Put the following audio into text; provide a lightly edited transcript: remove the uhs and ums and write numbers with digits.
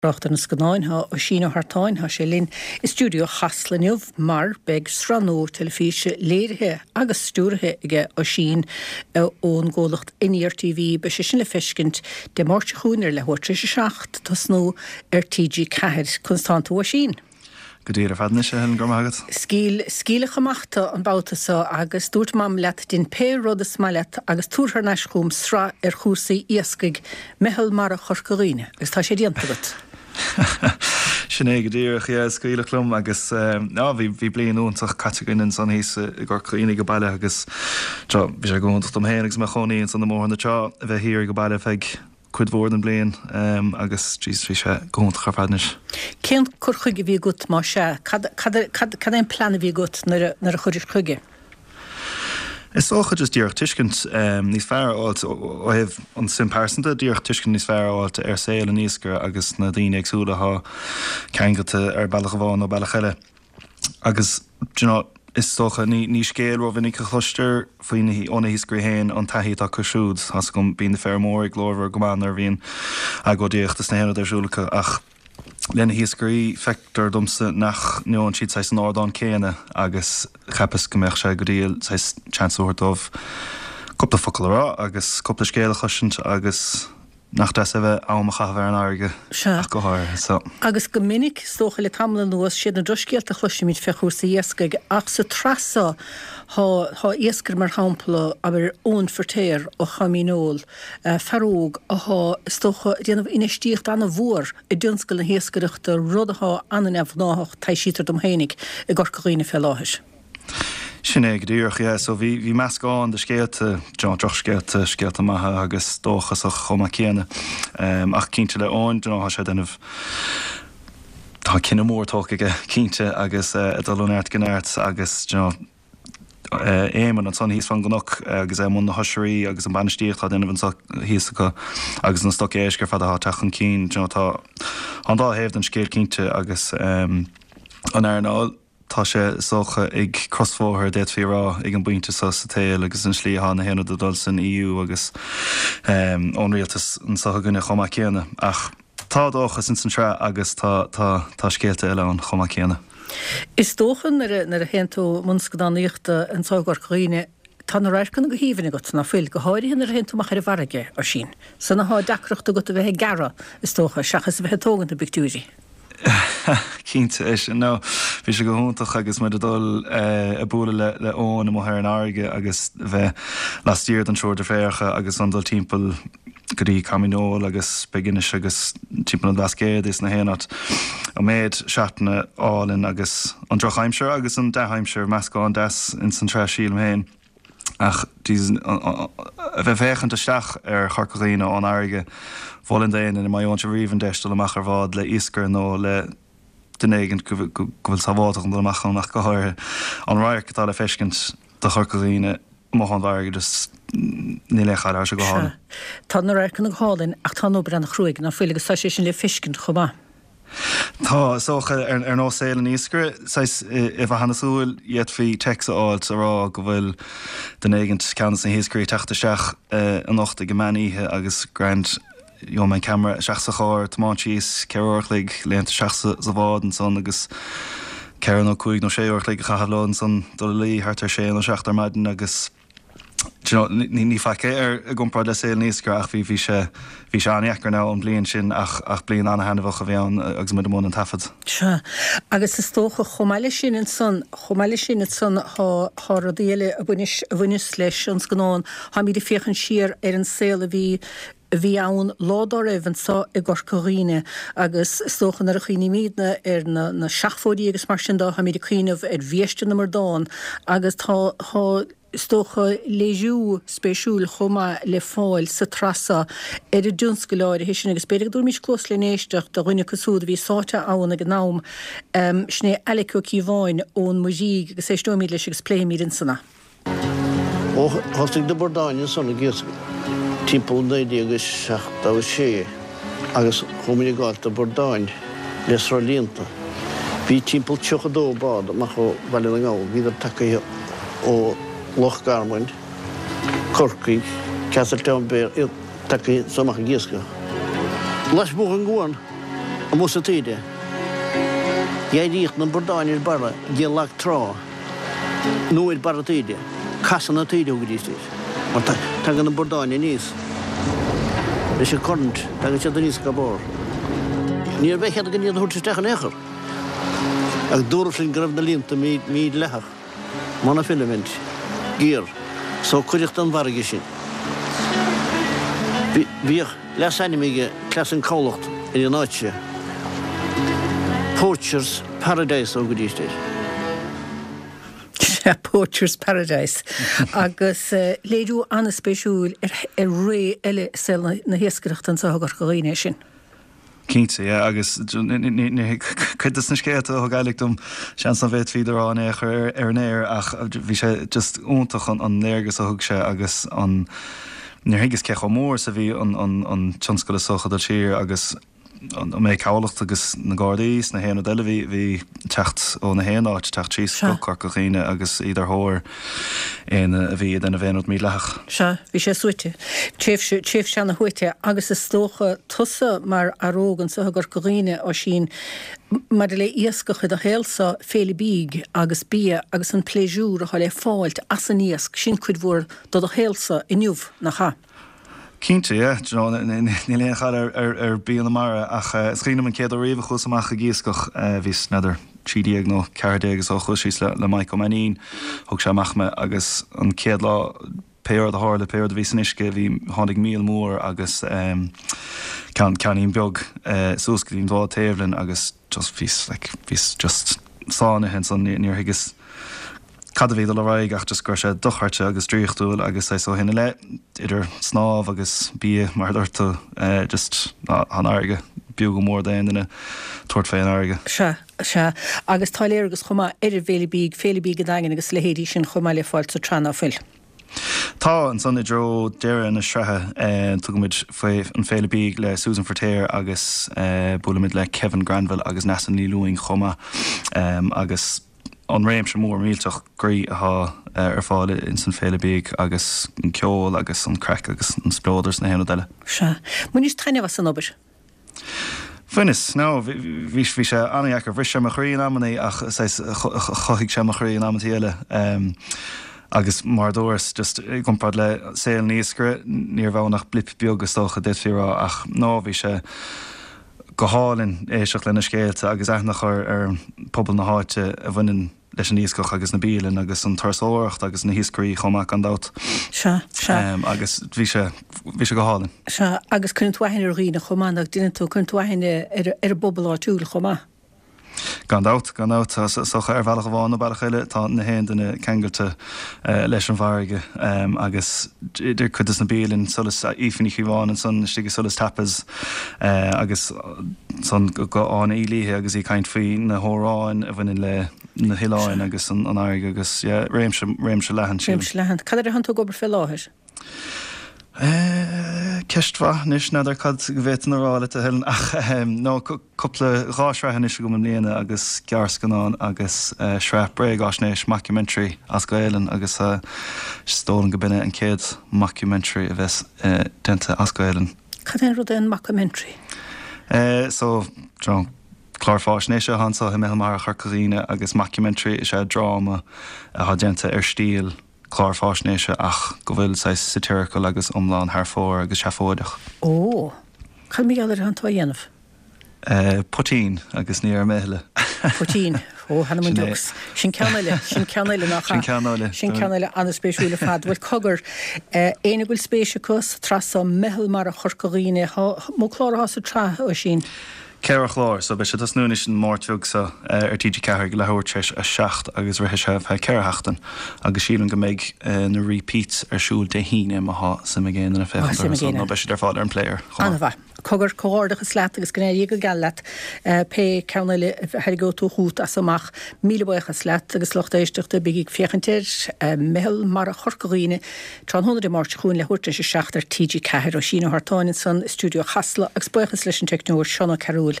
Trácht ar na scannáin, tá Oisín Ó hEartáin, tá sé linn i stiúideo Chasla inniu mar beidh sraith nua teilifíse léirithe agus stiúraithe aige Oisín ón gcomhlacht Aniar TV. Beidh sé sin le feiscint Dé Máirt seo chugainn ar leathuair tar éis a 7, tosnú ar TG4. Conas tánn tú Oisín? Go diail ar fad anois, a Helen, go raibh maith agat. Scaoil, scaoileadh amach tú an babhta so agus dúirt Mam leat dein pé rud is maith leat agus tabhair thar n-ais chugam sraith ar chúrsaí iascaigh Meitheal Mara Chorca Dhuibhne agus tá sé déanta agat. Sin é go díreach, yeah, scaoileadh liom agus á bhí, bhí bliain iontach caite againn ansan thíos i gCorca Dhuibhne age baile agus bhí sé go hiontach dom féin agus mé i mo chónaí ansan i mBóthar na Trá a bheith thiar age baile feadh cuid mhór den bhliain agus jeez bhí sé go hiontach ar fad anois. Cén cur chuige a bhí agat más ea? Cad, cad, cad, cad é an plean a bhí agat nuair a, nuair a chuiris chuige? Is dócha just díreach tuiscint níos fearr a fháilt ó thaobh an suim pearsanta, díreach tuiscint níos fearr a fháilt ar saol an iascaire agus na daoine éagsúla atá ceangailte ar bealach amháin nó bealach eile. Agus, do you know, is dócha, ní, ní scéal rómhinic a chloistear faoi na, ó na hiascairí féin, an taithí atá acu siúd. Tá's agam, bíonn na feirmeoirí glórmhar go maith nuair a bhíonn agóidíocht is na haon rud ar siúl acu, ach le na hiascairí, feictear domsa nach ngeobhann siad saghas an ardán céanna agus cheapas go mbeadh sé go diail saghas chance a thabhairt dóibh cúpla focal a rá agus cúpla scéal a chloisint agus Nach deas é bheith am a chaitheamh ar an fharraige Sea. ach go háirithe so. Agus go minic, is dócha, le tamall anuas, siad na drochscéalta a chloisimid fé chúrsaí iascaigh, ach sa tsraith so, thá, thá iascaire mar shampla, abair, Eoin Firtéar ó Choimín Óil, fear óg athá, is dócha, ag déanamh infheistíocht ana-mhór i dtionscal na hiascaireachta, rud athá ana-neamhghnáthach, taibhsítear dom fhéinig, i gCorca Dhuibhne fé láthair. Sin é go díreach, yeah. So bhí, bhí meascán de scéalta, do you know, drochscéalta, scéalta maithe agus dóchasach chomh maith céanna. Ach cinnte le Eoin, do you know, tá sé ag déanamh, tá cinneadh mór tógtha aige, cinnte, agus ag dul ó neart go neart agus, do you know, Éamonn ansan thíos fán gcnoc agus é i mbun na hoisrí agus an bainistíocht atá á déanamh anso thíos acu agus na stoc éisc ar fad atá ag teacht chun cinn, do you know, tá an dá thaobh den scéal cinnte agus an earnáil. Tá sé, is dócha, ag crosbhóthar, d'fhéadfaí a rá, ag an bpointe seo sa tsaol agus an slí atá na haon rud ag dul san EU agus ón rialtas anseo againne chomh maith céanna. Ach tá dóchas ins an tsraith agus tá, tá, tá scéalta eile ann chomh maith céanna. Is dócha nuair a, nuair a théann tú i mbun scannánaíochta anseo i gCorca Dhuibhne, tá na radharcanna go haoibhinn agat, ná fuil? Go háirithe nuair a théann tú amach ar an bhfarraige, Oisín. San athá deacracht agat a bheith ag gearradh, is dócha, seachas a bheith ag tógaint na bpictiúirí. Cinnte, é sin. No, bhí sé go hiontach agus muid ag dul ag bualadh le le Eoin amuigh ar an fharraige agus bheith laistiar den triúr deirféaracha agus an dul timpeall go dtí Coimín Óil agus Big-Inis agus timpeall an Bhlascaoid is na haon áit. An méid seatanna álainn agus an drochaimsir agus an dea-aimsir, meascán deas ins an tsraith sílim féin. Ach Jesus, a bheith ag féachaint isteach ar Chorca Dhuibhne ón fharraige, mholfainn d'éinne, má gheobhann sibh riamh an deis dul amach ar bhád le iascaire nó le duine éigin go bhfuil sábháltach an dul amach ann ach go háirithe, an radharc atá le feiscint do Chorca Dhuibhne amuigh ón bhfarraige, just níl aon chailleadh, tá sé go hálainn. Sea, tá na radharcanna go hálainn ach tá an obair an-chruaidh, ná fuil, agus tá sé sin le feiscint chomh maith. Tá, is dócha, ar nós saol an iascaire, saghas, i bhfathadh na súl, d'fhéadfaí téacs a fháilt a rá go bhfuil duine éigint, ceann de na hiascairí, ag teacht isteach anocht ag an meán oíche agus grand, gheobhaidh mé an ceamara isteach sa charr, tiomáint síos, 4 uair a chloig, léimt isteach sa bhád ansan agus 4 nó 5 nó 6 uair a chloig a chaitheamh leo ansan, dul a luí thart ar sé nó seacht ar maidin agus. Do you know, ní, ní faic é ar, i gcomparáid le saol an iascaire ach bhí, bhí sé, bhí sé an-dheacair now an bhliain sin ach, ach bliain an-thaitneamhach a bhí ann agus muid i mbun an taifead. Sea. Agus is dócha chomh maith leis sin ansan, chomh maith leis sin ansan thá, thá rudaí eile a bhaineas, a bhaineas leis an scannán, tháimíd ag féachaint siar ar an saol a bhí, a bhí ann lá dá raibh anso i gCorca Dhuibhne agus is dócha nuair a chuimhnímídne ar na, na seachfóidí agus mar sin de, tháimíd ag cuimhneamh ar bhiaiste na mbradán agus tá, tá, is dócha, léiriú spéisiúil chomh maith le fáil sa tsraith seo ar an dtionscal áirithe sin agus b'fhéidir go dtabharfaimis cluas len éisteacht do dhuine acu siúd a bhí sáite ann ag an am, sin é Alec Ó Cíobháin ón Muirígh agus éisteoimid leis agus pléifimid ansan é. Ó thosaigh na bradáin ansan ag iascach timpeall 1976 agus chuaigh muid ag gabháilt do bhradáin le sruthlíonta. Bhí timpeall 32 bád amach ó Bhaile na nGall, bhíodar tagaithe ó Loch Garman, Corcaigh, Castletownbere, iad tagaithe anso amach ag iascach. Lasmuigh den gcuan. Amuigh sa taoide. D'éiríodh na bordáin ar barra de lag trá nó ar barra taoide. Casadh na taoide a thugaidís air. Mar tagann na bordáin aníos leis an current, tagann siad aníos go barr. Ní raibh aon chead againn iad a thabhairt isteach in aon chor. Ach dúradh linn go raibh na líonta mídhleathach, monofilament gear, so cuireadh den bhfarraige sinn. Bhíodh leasainm ag Cleas an Cabhlacht ar an áit seo, Poachers Paradise a thugaidís air. Sea, Poachers Paradise. Agus léiriú an-spéisiúil ar ré eile i saol na hiascaireachta anseo i gCorca Dhuibhne é sin. Cinnte, yeah, agus cuid de na scéalta a thug Alec dom, seans nach bhféadfaí iad a rá in aon chor ar an aer ach bhí sé just iontach an léargas a thug sé agus an, níor thuigeas cé chomh mór is a bhí an tionscal is dócha ag dul siar agus an méid cabhlacht agus na Gardaí is na haon rud eile bhí, bhí teacht ó na haon áit, teacht síos go Corca Dhuibhne agus iad ar thóir éinne a bhí ag déanamh aon rud mídhleathach. Sea, bhí sé suaite. Tréimhse, tréimhse ana shuaite agus is dócha tusa mar fhear óg anseo i gCorca Dhuibhne, Oisín, maidir le iascach i do shaolsa, féile bídh agus bia agus an pléisiúr atá le fáilt as an iasc, sin cuid mhór de do shaolsa inniu, nach ea? Cinnte, yeah. Do you know, níl aon chaill ar bia na mara ach is cuimhin liom an chéad uair riamh a chuas amach ag iascach, bhíos, n'fheadar, 13 nó 14 is dócha, chuas síos le Mike Ó Mainnín, thug sé amach mé agus an chéad lá, pé rud a tharla, pé rud a bhí san uisce, bhí, tháinig míol mór agus ceann, ceainnín beag suas go dtí an bhád taobh linn agus just bhíos like, bhíos just sáinnithe ansan, níor thuigeas cad a bhí ag dul ar aghaidh ach just go raibh sé dochreidte agus draíochtúil agus saghas ó shin i leith, idir snámh agus bia mar a dúirt tú, just tá an fharraige b'fhiú go mór d'aon duine tabhairt fé an fharraige. Sea, sea. Agus tá léargas chomh maith ar an bhFéile Bídh, Féile Bídh an Daingin agus a leithéidí sin chomh maith le fáil sa tsraith ná fuil? Tá, ansan i dtreo deireadh na sraithe tugaimid faoi an Féile Bídh le Susan Feirtéar agus buailimid le Kevin Granville agus Neasa Ní Lúing chomh maith agus an réimse mór millteach groí atá ar fáil ins an Féile Bídh agus an ceol agus an craic agus an spleodar is na haon rud eile. Sea. Bhainis taitneamh as an obair? Bhaineas. No, bhí, bhí sé an-dheacair. Bhris sé mo chroí in amannaí ach saghas chothaigh sé mo chroí in amantaí eile. Agus mar a dúras, just i gcomparáid le saol an iascaire, ní raibh ann ach blip beag is dócha, d'fhéadfaí a rá ach no, bhí sé go hálainn éisteacht lena scéalta agus aithne a chur ar phobal na háite a bhaineann leis an iascach agus na bialanna agus an turasóireacht agus na hiascairí chomh maith gan dabht. Sea, sea. Agus bhí sé, bhí sé go hálainn. Sea, agus cuireann tú aithne ar dhaoine chomh maith, nach ndeineann tú, cuireann tú aithne ar, ar an bpobal áitiúil chomh maith. Gan dabht, gan dabht. Is dócha ar bhealach amháin nó bealach eile tá na haon duine ceangailte leis an bhfarraige agus idir cuid de na bialanna, Solas, Aoife Ní Chíobháin ansan istigh i Solas Tapas agus ansan go Áine Uí Laoithe agus í ag caint faoi na hamhráin a bhaineann le na hoileáin agus an fharraige agus yeah, réimse, réimse leathan sílim. Réimse leathan. Cad air atánn tú ag obair fé láthair? Ceist mhaith anois, n'fheadar cad go bhféadfainn a rá leat a Helen ach no cúpla, 2 shraith anois agam i mbliana agus gearrscannán agus sraith bréagáisnéis, mockumentary, as Gaelainn agus is dóigh liom go b'in é an chéad mockumentary a bheas déanta as Gaelainn. Cad é an rud é an mockumentary? So, do you know, clár fáisnéise atá anseo i Meitheal Mara Chorca Dhuibhne agus mockumentary is ea dráma atá déanta ar stíl clár fáisnéise ach go bhfuil saghas satirical agus iomlán thar fóir agus seafóideach. Ó! Cad mar gheall air atánn tú á dhéanamh? Poitín agus ní déarfaidh mé a thuilleadh. Poitín. Ó, th'anam 'on deox. Sin ceann eile, sin ceann eile nach ea? Sin ceann eile. Sin ceann eile an-spéisiúil ar fad. Bhuel, cogar, éinne go bhfuil spéis acu sa tsraith so, Meitheal Mara Chorca Dhuibhne, mó clár atá sa tsraith, Oisín? 4 chlár, so beidh sé ag tosnú anois an Máirt bheag seo ar TG4 ag leathuair tar éis a 7 agus rithfidh sé ar feadh 4 sheachtain agus sílim go mbeidh na repeats ar siúl Dé hAoine má thá suim ag aon duine féachaint orthu so nó beidh siad ar fáil ar an player chomh maith. An-mhaith. Cogar, comhghairdeachas leat agus go n-éirí go geal leat pé ceann eile a thairgeoidh tú chugat as amach. Míle buíochas leat agus lucht éisteachta, bígí ag féachaint ar Meitheal Mara Chorca Dhuibhne tráthnóna Dé Máirt seo chugainn leathuair tar éis a 7 ar TG4. Oisín Ó hArtáin ansan i stiúideo Chasla agus buíochas leis an teicneoir Seán Ó Cearúil.